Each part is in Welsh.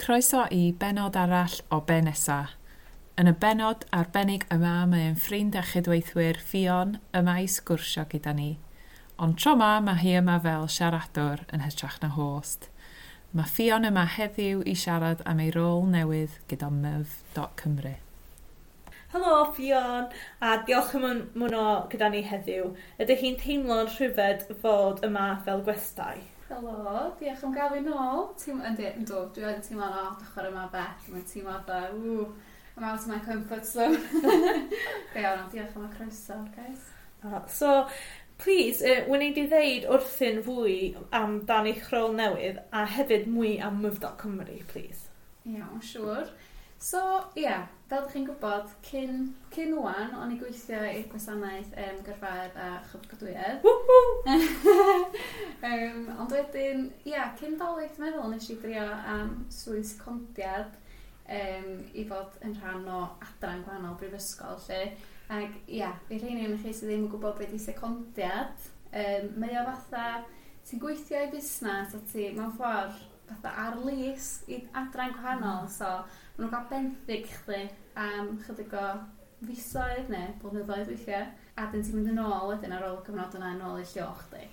Croeso i bennod arall o Be Nesa. Yn y bennod arbennig yma mae ein ffrind a chydweithwyr Ffion yma i sgwrsio gyda ni. Ond tro 'ma mae hi yma fel siaradwr yn hytrach na host. Mae Ffion yma heddiw i siarad am ei rôl newydd gyda myf.cymru. Helo Ffion, a diolch am ymuno gyda ni heddiw. Ydych chi'n teimlo'n rhyfedd fod yma fel gwestai? Helo, diolch am gael fi nôl. Teimlo, yndi, yndw, dwi yn teimlo'n od ochr yma bell. Mae'n teimlo fatha, ww, I'm out of my comfort zone. Go iawn, ond diolch am y croeso, guys. So, please, wneud i ddeud wrthyn fwy amdan eich rôl newydd a hefyd mwy am myf.cymru, please. Iawn, siŵr. So, ie, yeah, fel ydych chi'n gwybod, cyn wan, o'n i gweithio i'r gwasanaeth gyrfaoedd a chyflogadwyedd. Ond wedyn, ie, yeah, cyn Dolig, dwi'n meddwl, nes i drio am swydd secondiad i fod yn rhan o adran gwahanol brifysgol, lle. Ac, ia, yeah, i rheini o'n chi sydd ddim yn gwybod beth i secondiad, mae o fatha, ti'n gweithio i busnes a ti, mewn ffordd, fatha ar lease i adran gwahanol, so maen nhw'n cael benthyg chdi am chydig o fisoedd neu blynyddoedd weithiau, a dyn ti'n mynd yn ôl wedyn ar ôl y cyfnod yna yn ôl i lle o'ch chdi.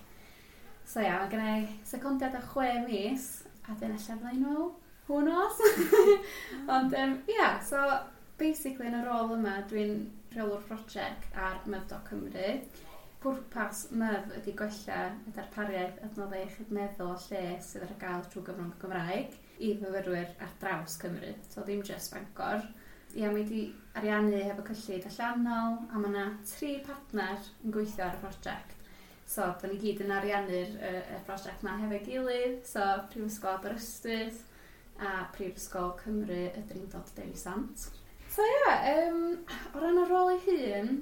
So ia, mae gen i secondiad o 6 mis, a dyn ella fydda i'n ôl, who knows? Ond ia, so basically yn y rôl yma dwi'n rheolwr prosiect ar myf.cymru. Pwrpas myf ydy gwella y darpariaeth adnoddau iechyd meddwl a lles sydd ar gael trwy gyfrwng y Gymraeg i fyfyrwyr ar draws Cymru, so ddim jyst Bangor. Ia, mae wedi ariannu hefo cyllid allanol, a mae yna 3 partner yn gweithio ar y prosiect. So, da ni gyd yn ariannu'r y prosiect yma hefo'i gilydd, so Prifysgol Aberystwyth a Prifysgol Cymru y Drindod Dewi Sant. So ia, o ran y rôl ei hun,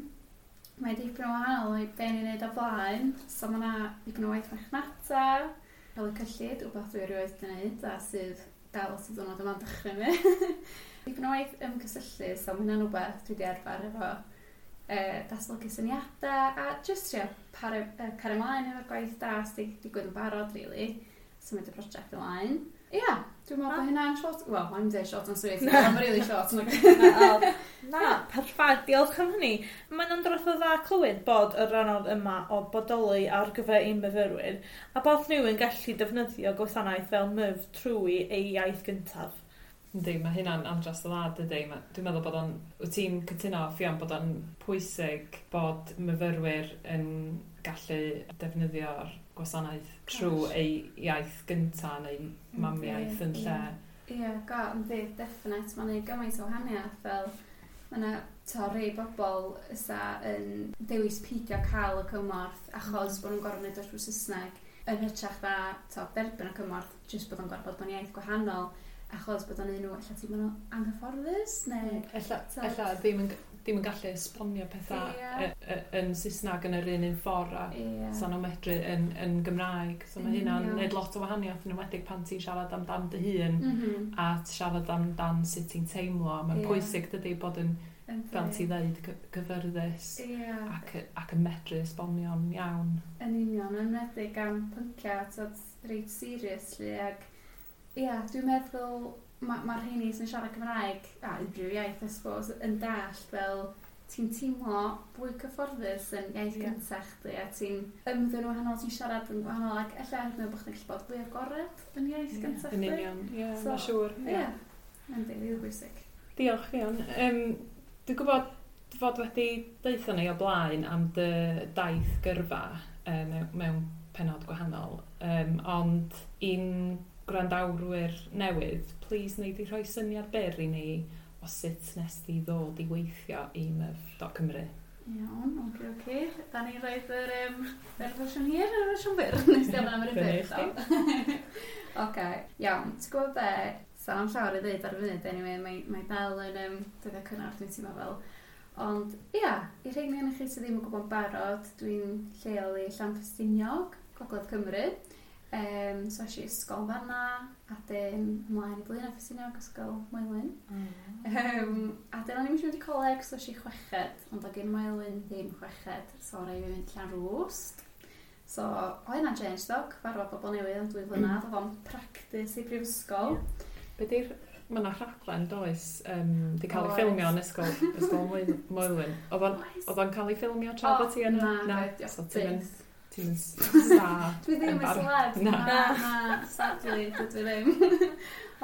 mae dipyn o wahanol i be ni'n neud o blaen. So mae yna dipyn o waith marchnata, rheoli cyllid, wbath dwi erioed wedi gwneud a sydd dal at y diwrnod yma'n dychryn fi. Dipyn o waith ymgysylltu, so mae hynna'n wbath dwi wedi arfer efo datblygu syniadau a jyst trio cario ymlaen efo'r gwaith da sydd wedi digwydd yn barod, really. Symud y prosiect ymlaen. Ia, yeah, dwi'n meddwl bod hynna'n short... Wel, mae'n dweud short and sweet, mae'n really short. Na, perffaith, diolch am hynny. Mae'n andros o dda clywed bod y rhan yma o bodoli ar gyfer ein myfyrwyr a bod nhw yn gallu defnyddio gwasanaeth fel myf trwy ei iaith gyntaf. Yndi, mae hynna'n andros o dda, dydy. Dwi'n meddwl bod o'n... Wyt ti'n cytuno, Ffion, bod o'n pwysig bod myfyrwyr yn gallu defnyddio'r gwasanaeth trwy ei iaith gynta neu mamiaith yn lle. Ie, go, yndi, definite. Mae'n neud gymaint o wahaniaeth fel mae yna rhai bobl ysa yn dewis peidio cael y cymorth achos bod nhw'n gorfod wneud o trwy Saesneg yn hytrach na derbyn y cymorth jyst bod o'n gorfod bod yn iaith gwahanol achos bod o'n un nhw ella teimlo nhw anghyfforddus neu... Ella ddim yn gallu esbonio pethau yn Saesneg yn yr un ffordd a sa nhw'n medru yn Gymraeg. So mae hynna'n neud lot o wahaniaeth yn enwedig pan ti'n siarad amdan dy hun a siarad amdan sut ti'n teimlo. Mae'n pwysig dydy bod yn, fel ti ddeud, gyfyrddus ac yn medru esbonio'n iawn. Yn union, yn enwedig am pynciau reit serious lly, ac ia, dwi'n meddwl mae'r rheini sy'n siarad Cymraeg, a unrhyw iaith, I suppose, yn dallt fel ti'n teimlo fwy cyfforddus yn iaith gyntaf chdi, a ti'n ymddwyn wahanol, ti'n siarad yn wahanol, ac ella hyd yn oed bod chdi'n gallu bod fwy agored yn iaith gyntaf chdi. Yn union, ie, mae'n siŵr. Ie, yndi, rili bwysig. Diolch, Ffion. Dwi'n gwybod fod wedi deutha ni o blaen am dy daith gyrfa mewn pennod gwahanol, ond un gwrandawrwyr newydd, please wnei di rhoi syniad byr i ni o sut nes di ddod i weithio i myf.cymru. Iawn, oce. Da ni'n rhoi'r yr fersiwn hir a'r fersiwn byr? Nes di ofyn am yr un byr. Oce, iawn. Ti'n gwybod be? Sa'n am llawer i ddeud ar y funud, anyway, mae dal yn dyddiau cynnar, dwi'n teimlo fel. Ond, ia, i rheini ohonoch chi sydd ddim yn gwybod barod, dwi'n lleol i Llanffestiniog, Gogledd Cymru. So es i ysgol fanna, a dyn ymlaen i Blaenau Ffestiniog, Ysgol Moelwyn. A dyn o'n i'n mynd i coleg, so es i chweched, ond oedd gen Moelwyn ddim chweched, so rhaid i fi fynd Llanrwst. So, o hynna'n change ddo, cyfarfod bobl newydd am 2 flynedd, oedd o'n practis i brifysgol. Be di'r... Mae yna rhaglen, does, di cael ei ffilmio yn ysgol Moelwyn. Oedd o'n cael ei ffilmio tra bod ti yna? Na, so ti'n mynd star. Dwi ddim yn celeb. Na, sadly, dwi ddim.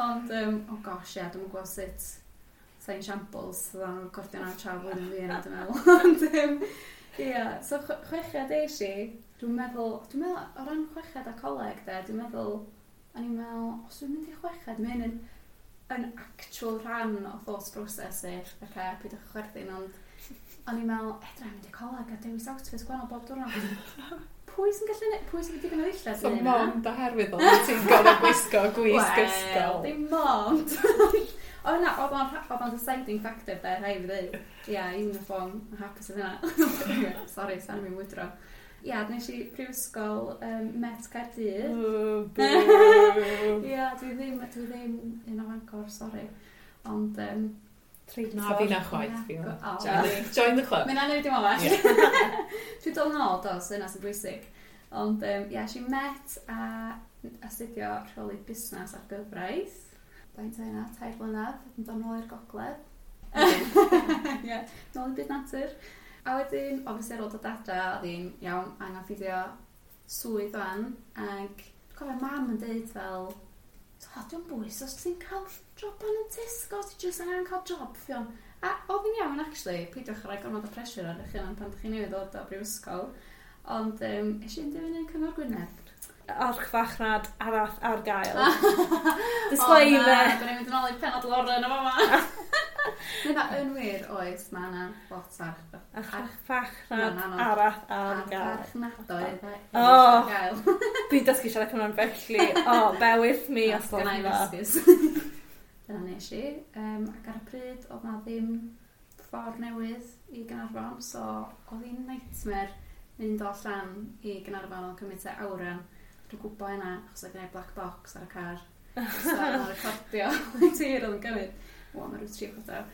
Ond, oh gosh, ie, dwi'n gwybod sut sa'n shambles, oedd o'n recordio na tra flwyddyn fi yna, dwi'n meddwl. Ond, ie, so chweched eis i, dwi'n meddwl, o ran chweched a coleg, de, dwi'n meddwl, o'n i'n meddwl, os dwi'n mynd i chweched, mae hyn yn actual rhan o thought process i, oce, peidiwch chwerthin, ond o'n i'n meddwl, edra, mynd i coleg a dewis outfits gwahanol bob diwrnod. Pwy sy'n gallu, pwy sy'n digon o ddillad? So mond oherwydd oedd ti'n gorfod gwisgo gwisg ysgol. Wel, dim mond. O na, oedd o'n deciding factor de, rhaid fi ddweud. Ia, uniform, yn hapus oedd hynna. Sorry, sa'n i'n wydro. Ia, nes i prifysgol Met Caerdydd. Ia, dwi ddim un o Fangor, sorry. Ond... Na, fi na chwaith. Fi join the club. Mae'n anodd dim ond. Dwi'n dod yn ôl, dos, yna sy'n bwysig. Ond, ia, es i Met a astudio rheoli busnes a'r gyfraith. Faint o hynna, 3 blynedd, yn dod nôl i'r gogledd. Ie, nôl i byd natur. A wedyn, obviously ar ôl dod adra, oedd hi'n iawn, angen ffeindio swydd fan, ac dwi'n cofio mam yn deud fel, o, dwi'n bwys, os ti'n cael job yn y Tesco, ti jyst angen cael job, Ffion. A oedd hi'n iawn, actually, peidiwch rhoi gormod o pressure ar eich hunan pan ydych chi newydd ddod o brifysgol. Ond es i'n dilyn yn Cyngor Gwynedd. Archfarchnad arall ar gael. Disclaimer. O na, da ni'n mynd yn ôl i'r penod Lauren o fama. Na, yn wir, oes, mae yna lot archfarchnad arall ar gael. Archfarchnadoedd ar gael. Dwi'n dysgu siarad Cymraeg felly. Oh, bear with me os gwelwch yn dda. Dyna nes i. Ac ar y pryd, oedd na ddim ffordd newydd i Gaernarfon, so oedd hi'n nightmare mynd o allan i Gaernarfon o'n cymryd te awran. Dwi'n gwybod hynna, achos oedd gen i black box ar y car. So oedd o'n recordio tir oedd yn gymryd. O, mae rhyw 3/4.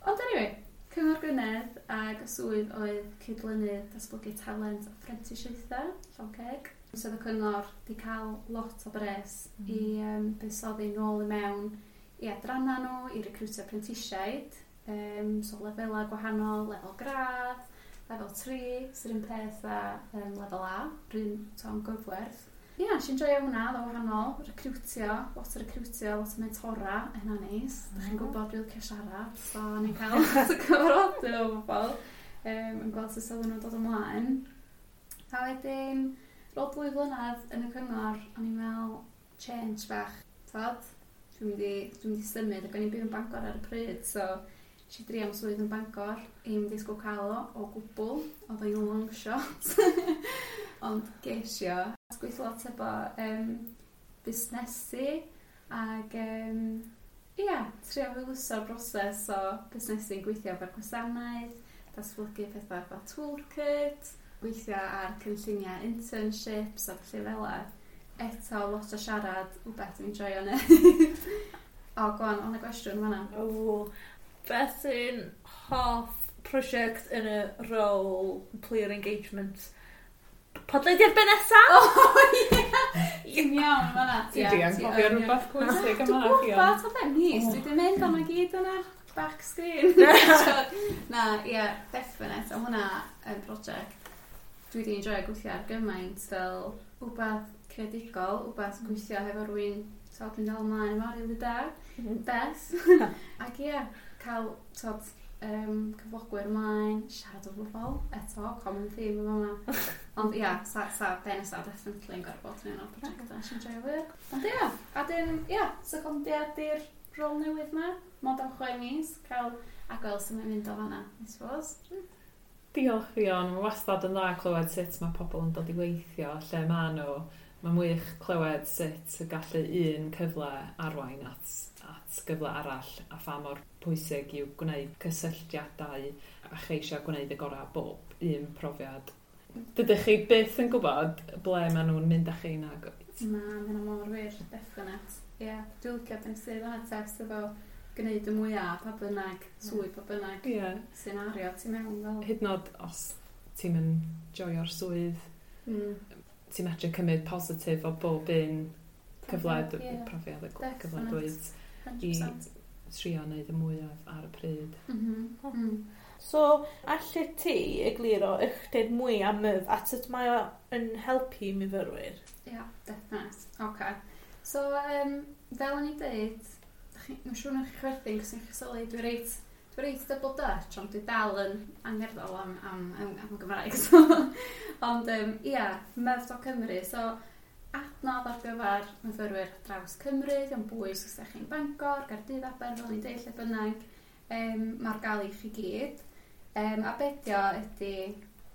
Ond anyway, Cyngor Gwynedd ag y swydd oedd cydlynydd datblygu talent a phrentisiaethau, Llonceg. So oedd y cyngor di cael lot o bres i buddsoddi nôl i mewn i adranna nhw, i recrwtio prentisiaid. So lefelau gwahanol, lefel gradd, lefel 3, sy'r un peth a lefel A, rhywun to'n gyfwerth. Ie, nes i'n joio hwnna, oedd o wahanol, recrwtio, lot o recrwtio, lot o mentora, hynna neis. Mm. Dach chi'n gwybod dwi'n licio siarad, so o'n i'n cael lot o cyfarfodydd o bobl, yn gweld sut oedden nhw'n dod ymlaen. A wedyn, ar ôl 2 blynedd yn y cyngor, o'n i'n meddwl, change bach, tod? Dwi'n mynd i symud, ac o'n i'n byw yn Bangor ar y pryd, so nes i drio am swydd yn Bangor, i'm disgwyl cael o gwbl, oedd o'n long shot. Ond ges i o. Gweithio lot efo busnesu ac ia, trio hwyluso'r broses o busnesu'n gweithio efo'r gwasanaeth, datblygu pethau fel toolkit, gweithio ar cynlluniau internships a felly fel 'a. Eto, lot o siarad, wbeth dwi'n joio neud. O, go on, o'na gwestiwn fan'na. O, beth sy'n hoff prosiect yn y rôl player engagement? Podlediad be nesa? O, ie! Ti'n iawn fan'na. Ti di anghofio rhywbeth pwysig yma. Dwi'n gwybod, o fe mis. Dwi wedi mynd am y gyd yn yr back screen. Na, ie, definite. O hwnna yn prosiect. Dwi wedi enjoyo gweithio ar gymaint fel wbath creadigol, wbath gweithio hefo rhywun, so dwi'n dal ymlaen efo rili da. Beth. Ac ie, cael, tod, cyflogwyr ymlaen, siarad o bobl, eto, common theme yn fama. Ond ia, sa be nesa definitely yn gorfod yn un o'r prosiectau nes i'n joio fwy. Ond ia, a dyn, ia, secondiad i'r rôl newydd ma, mond am 6 mis, cael a gweld sut mae'n mynd o fanna, I suppose. Diolch Ffion, mae wastad yn dda clywed sut mae pobl yn dod i weithio, lle maen nhw. Mae'n wych clywed sut y gallu un cyfle arwain at gyfle arall a pha mor pwysig yw gwneud cysylltiadau a cheisio gwneud y gorau bob un profiad. Dydych chi byth yn gwybod ble maen nhw'n mynd â chi nag oed? Na, mae hynna mor wir, definite. Ie, yeah, dwi'n licio beth sydd yna test efo gwneud y mwyaf pa bynnag, swydd pa bynnag, scenario ti mewn fel. Hyd yn oed os ti'n mynd joio'r swydd, ti'n medru cymryd positif o bob un cyfle, profiad y cyfle dweud. 100%. I trio wneud y mwyaf ar y pryd. So, allet ti egluro ychydig mwy am MYF a sut mae o yn helpu myfyrwyr? Ia, yeah, definite. Okay. So, fel o'n i'n dweud, mae'n siŵr na chi chwerthin, cos chi'n sylwi, dwi reit double Dutch, ond dwi dal yn angerddol am Gymraeg. So. Ond, ia, myf.cymru. So, adnodd ar gyfer myfyrwyr draws Cymru, dio'n bwys os ydych chi'n Bangor, Gaerdydd, Aber, fel ni'n deud, lle bynnag, mae'r gael i chi gyd. A be dio ydy,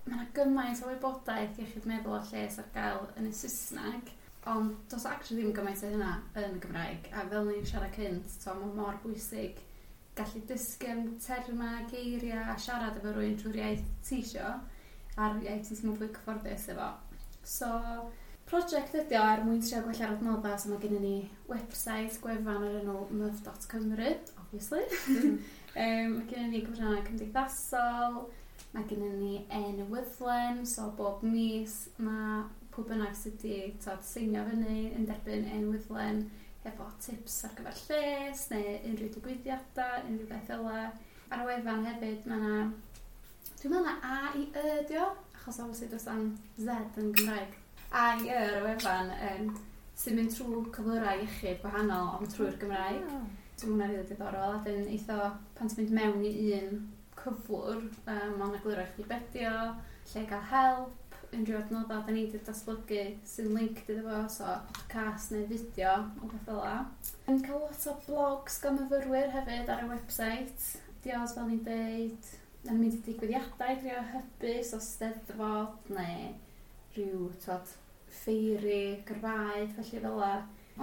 mae yna gymaint o wybodaeth iechyd meddwl a lles ar gael yn y Saesneg, ond does actually ddim gymaint o hynna yn y Gymraeg. A fel ni'n siarad cynt, so mae mor bwysig gallu dysgu am termau, geiriau a siarad efo rhywun trwy'r iaith ti isio, a'r iaith ti'n teimlo fwy cyfforddus efo. So, prosiect ydi o er mwyn trio gwella'r adnoddau, so mae gennym ni website, gwefan o'r enw myf.cymru, obviously. Mae gennym ni cyfryngau cymdeithasol, mae gennym ni e-newyddlen, so bob mis mae pwy bynnag sydd wedi seinio fyny yn derbyn e-newyddlen efo tips ar gyfer lles neu unrhyw digwyddiadau, unrhyw beth fel 'na. Ar y wefan hefyd mae yna, dwi'n meddwl na A i Y dio, achos obviously does 'na'm Z yn Gymraeg. A i Y ar y wefan sy'n mynd trwy cyflyrau iechyd gwahanol ond trwy'r Gymraeg. So mae hwnna'n rili diddorol. A dyn eitha pan ti'n mynd mewn i un cyflwr, mae'n egluro i chdi be dio, lle gael help, unrhyw adnoddau da ni wedi datblygu sy'n linked iddo fo, so podcast neu fideo o beth fel 'na. Yn cael lot o blogs gan myfyrwyr hefyd ar y website. Dios, fel ni'n deud, da ni'n mynd i digwyddiadau i drio hybu, so steddfod neu rhyw, twod, ffeiri, gyrfaoedd, felly fel 'na.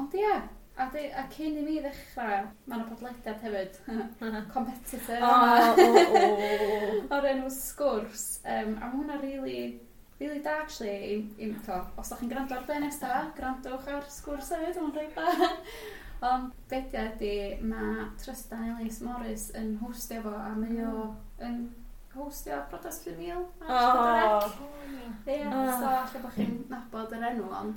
Ond ie, a cyn i mi ddechrau, mae yna podlediad hefyd, competitor o'r enw Sgwrs, a mae hwnna really, really da, actually, to, os ydych chi'n gwrando ar be nesa, gwrandwch ar Sgwrs hefyd, mae'n reit da. Ond be dio ydy, mae Trystan Ellis Morris yn hostio fo, a mae o yn hostio Priodas 5000 ar Ie, so alla bod chi'n nabod yr enw, ond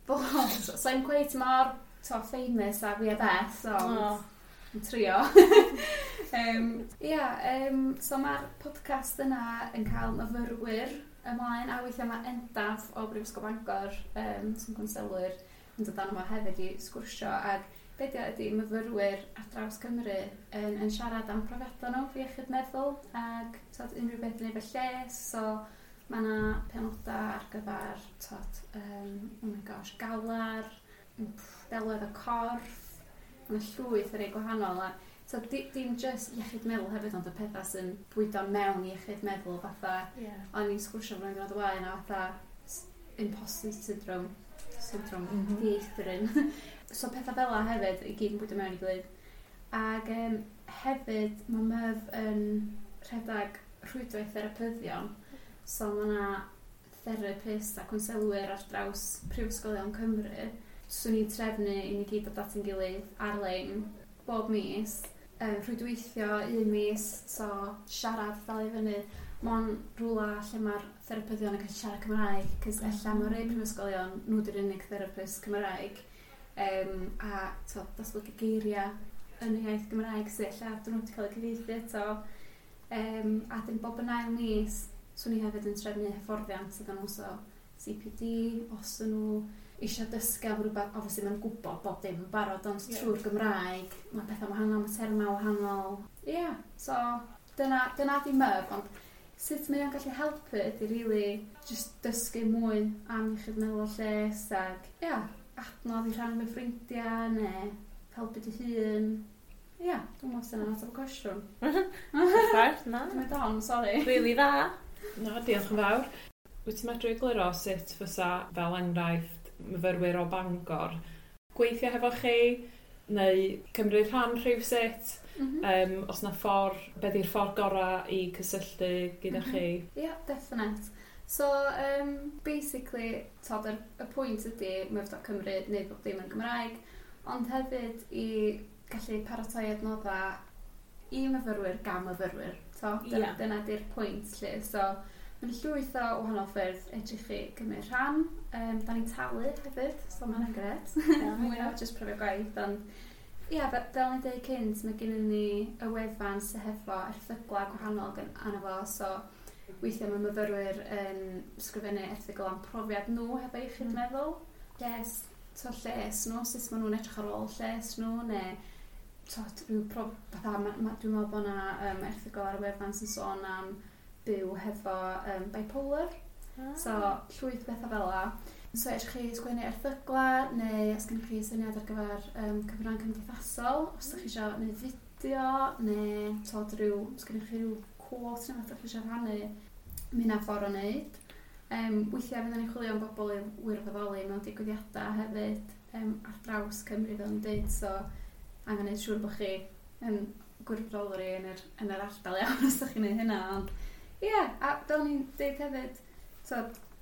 so, so i'm quite mor to, famous a fi a Beth, ond yn trio. Ia, so mae'r podcast yna yn cael myfyrwyr ymlaen, a weithiau mae Endaf o Brifysgol Bangor, sy'n gwnselwyr, yn dod arno fo hefyd i sgwrsio, ac be dio ydy myfyrwyr ar draws Cymru yn siarad am profiadau nhw fi iechyd meddwl ac tod, unrhyw beth yn efo lles, so mae yna penodau ar gyfer tod, oh my gosh, galar, delwedd y corff, mae yna llwyth o rei gwahanol. A, so, dim just iechyd meddwl hefyd, ond y pethau sy'n bwydo mewn i iechyd meddwl, fatha, o'n i'n sgwrsio flwyddyn diwrnod o blaen, a fatha imposter syndrome, syndrome dieithryn. So pethau fel 'na hefyd, i gyd yn bwydo mewn i gilydd. Ac hefyd, mae MYF yn rhedeg rhwydwaith therapyddion. So mae yna therapist a cwnselwyr ar draws prifysgolion Cymru. Swn i'n trefnu i ni gyd dod at ein gilydd ar-lein bob mis. Rhwydweithio un mis, so siarad dal i fyny. Mae'n rhywle lle mae'r therapyddion yn gallu siarad Cymraeg, cos ella mewn rhai prifysgolion, nhw di'r unig therapist Cymraeg. A to, datblygu geiriau yn y iaith Gymraeg sydd ella dyn nhw wedi cael eu cyfieithu eto. A dyn bob yn ail mis, swn i hefyd yn trefnu hyfforddiant iddyn nhw, so CPD, os ydyn nhw eisiau dysgu am rhywbeth, obviously maen nhw'n gwybod bob dim yn barod, ond trwy'r Gymraeg, mae pethau wahanol, mae termau wahanol. Ie, yeah, so dyna di MYF, ond sut mae o'n gallu helpu ydy really just dysgu mwy am iechyd meddwl a lles ac, ie, yeah, adnodd i rhannu efo ffrindiau neu helpu dy hun. Ie, yeah, dwi'n meddwl sy'n ateb y cwestiwn. Perffaith, na. Dwi'n mynd on, sorry. Really dda. Na, diolch yn fawr. Wyt ti'n medru egluro sut fysa, fel enghraifft, myfyrwyr o Bangor gweithio hefo chi, neu cymryd rhan rhywsut, os na ffordd, be di'r ffordd gorau i cysylltu gyda chi? Ie, yeah, definite. So, basically, tod, y pwynt ydy myf.cymru neu bob dim yn Gymraeg, ond hefyd i gallu paratoi adnoddau i myfyrwyr gan myfyrwyr. So, dyna, dyna di'r pwynt lle. So, mae'n llwyth o wahanol ffyrdd edrych chi gymryd rhan. Da ni'n talu hefyd, so mae'n gret. Mwy na just profiad gwaith, ond Ia, fel ni'n dweud cynt, mae gennym ni y wefan sydd hefo erthyglau gwahanol arno fo, so weithiau mae myfyrwyr yn sgrifennu erthygl am profiad nhw hefo iechyd meddwl. Lles, to lles nhw, sut maen nhw'n edrych ar ôl lles nhw, neu to, rhyw fatha, dwi'n meddwl bod yna erthygl ar y wefan sy'n sôn am byw hefo bipolar. So, llwyth bethau fel 'a. So, edrych chi sgwennu erthygla, neu os gennych chi syniad ar gyfer cyfrannau cymdeithasol, os ydych chi eisiau gwneud fideo, neu tod rhyw, os gennych chi rhyw quote neu beth ydych chi eisiau rhannu, mae hynna'n ffordd o wneud. Weithiau fydden ni'n chwilio am bobl i wirfoddoli mewn digwyddiadau hefyd ar draws Cymru fel yn dweud, so angen gwneud siŵr bod chi yn gwirfoddoli yn yr ardal iawn os ydych chi'n gwneud hynna. Ond ie, yeah, a fel ni'n dweud hefyd, so,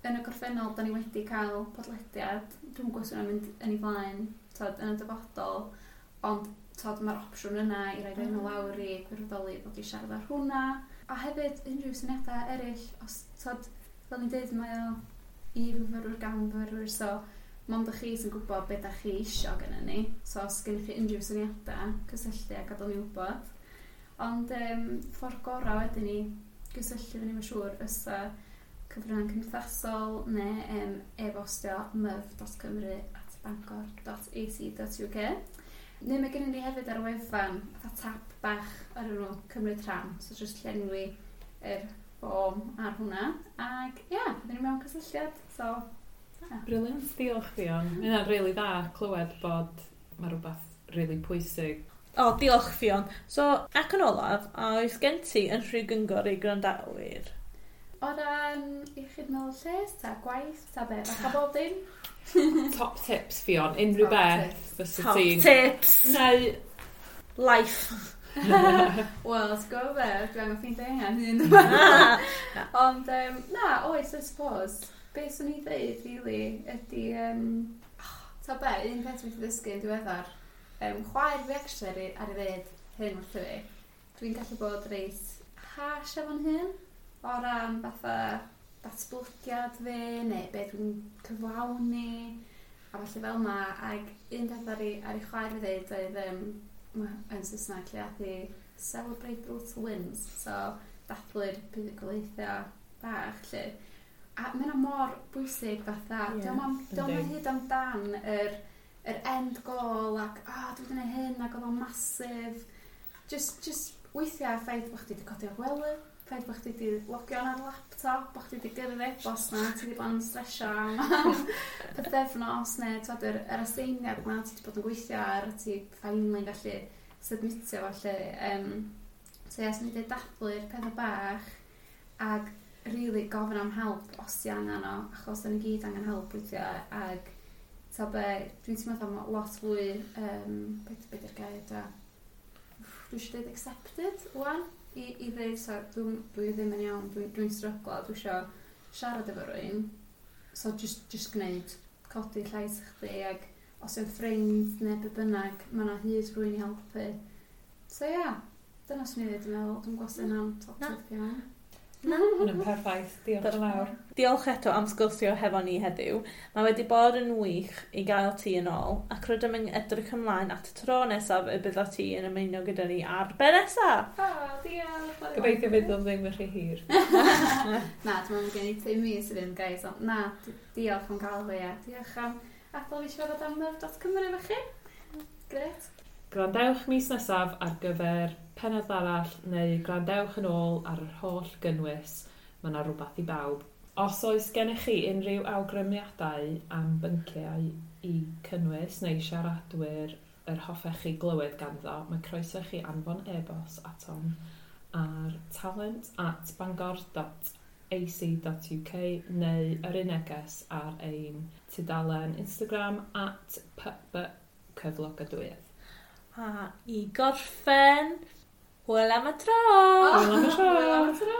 yn y gorffennol, da ni wedi cael podlediad, dwi'n gwybod os yna'n mynd yn ei flaen tod, yn y dyfodol, ond tod, mae'r opsiwn yna i roi enw lawr i gwirfoddoli ddod i siarad ar hwnna. A hefyd unrhyw syniadau eraill, os, tod, fel ni'n dweud, mae o i fyfyrwyr gan fyfyrwyr, so mond ych chi sy'n gwybod beth da chi isio gyda ni. So os gennych chi unrhyw syniadau, cysylltu a gadael ni wybod. Ond ffordd gorau wedyn ni gysylltu fyny, mae'n siŵr, fysa cyfryngau cymdeithasol neu e-bostio myf.cymru@bangor.ac.uk. Neu mae gennym ni hefyd ar y wefan fatha tab bach ar enw cymryd rhan, so just llenwi yr ffom ar hwnna. Ac ie, yeah, byddwn ni mewn cysylltiad. So, yeah. Brilliant, diolch Ffion. Mae hynna'n rili dda clywed bod mae rhywbeth rili pwysig. O, diolch Ffion. So, ac yn olaf, a oes gen ti unrhyw gyngor i gwrandawyr? O ran iechyd meddwl lles, ta gwaith, ta be, fatha bob dim? Top tips Ffion, unrhyw Top beth tips. fysa Top ti'n... tips! Neu... Life! Wel, ti'n gwybod be, dwi angen ffeindio hynna hun. Ond, na, oes, I suppose, be swn i ddeud, really, ydy, ta be, un peth dwi wedi ddysgu yn diweddar, chwaer fi actually ar ei ddeud hyn wrtho fi. Dwi'n gallu bod reit harsh efo'n hun, o ran fatha datblygiad fi, neu be dwi'n cyflawni, a falle fel 'na. Ac un peth ar ei chwaer fi ddeud oedd, yn Saesneg lle ath hi celebrate the little wins, so dathlu'r buddugoliaethau bach lle. A mae hynna mor bwysig fatha, dio'm yn hyd amdan yr end goal ac dwi wedi gwneud hyn ac oedd o'n massive. Just weithiau ffaith bod chdi wedi codi o'r gwely, ffaith bod chdi wedi logio ar laptop, bod chdi wedi gyrru e-bost na, ti wedi bod yn stresio am pythefnos neu twod, yr aseiniad na ti wedi bod yn gweithio ar, a ti finally gallu submitio fo lle. So ie, swn i'n dweud dathlu'r pethau bach ag really gofyn am help os ti angen o, achos da ni gyd angen help weithiau, ag ta be, dwi'n teimlo fatha ma' lot fwy, be di'r gair da? Dwi eisiau dweud accepted wan, i ddeud, so, dwi ddim yn iawn, dwi'n stryglo, dwi eisiau siarad efo rywun, so just gwneud, codi llais chdi, ag os yw'n ffrind neu be bynnag, mae yna hyd rywun i helpu. So ie, yeah, dyna swn i ddweud, dwi'n meddwl, dwi'n gwybod sy'n hynna'n top Na. tip iawn. Na. Hwnna'n perffaith, diolch yn fawr. Diolch eto am sgwrsio hefo ni heddiw. Mae wedi bod yn wych i gael ti yn ôl, ac rydym yn edrych ymlaen at y tro nesaf y bydda ti yn ymuno gyda ni ar be nesaf. O, diolch. Gobeithio fydd o'n ddim yn rhy hir. Na, dwi'n meddwl gen i 5 mis i fynd, guys, ond na, diolch am gael fi, a diolch am adael fi siarad am myf.cymru efo chi. Gret. Gwrandewch mis nesaf ar gyfer pennod arall neu gwrandewch yn ôl ar yr holl gynnwys. Mae yna rhywbeth i bawb. Os oes gennych chi unrhyw awgrymiadau am bynciau i cynnwys neu siaradwyr yr hoffech chi glywed ganddo, mae croeso chi anfon e-bost atom ar talent@bangor.ac.uk neu yr un neges ar ein tudalen Instagram @pb cyflogadwyedd. A i gorffen, hwyl am y tro! Hwyl am y tro! Hwyl am y tro!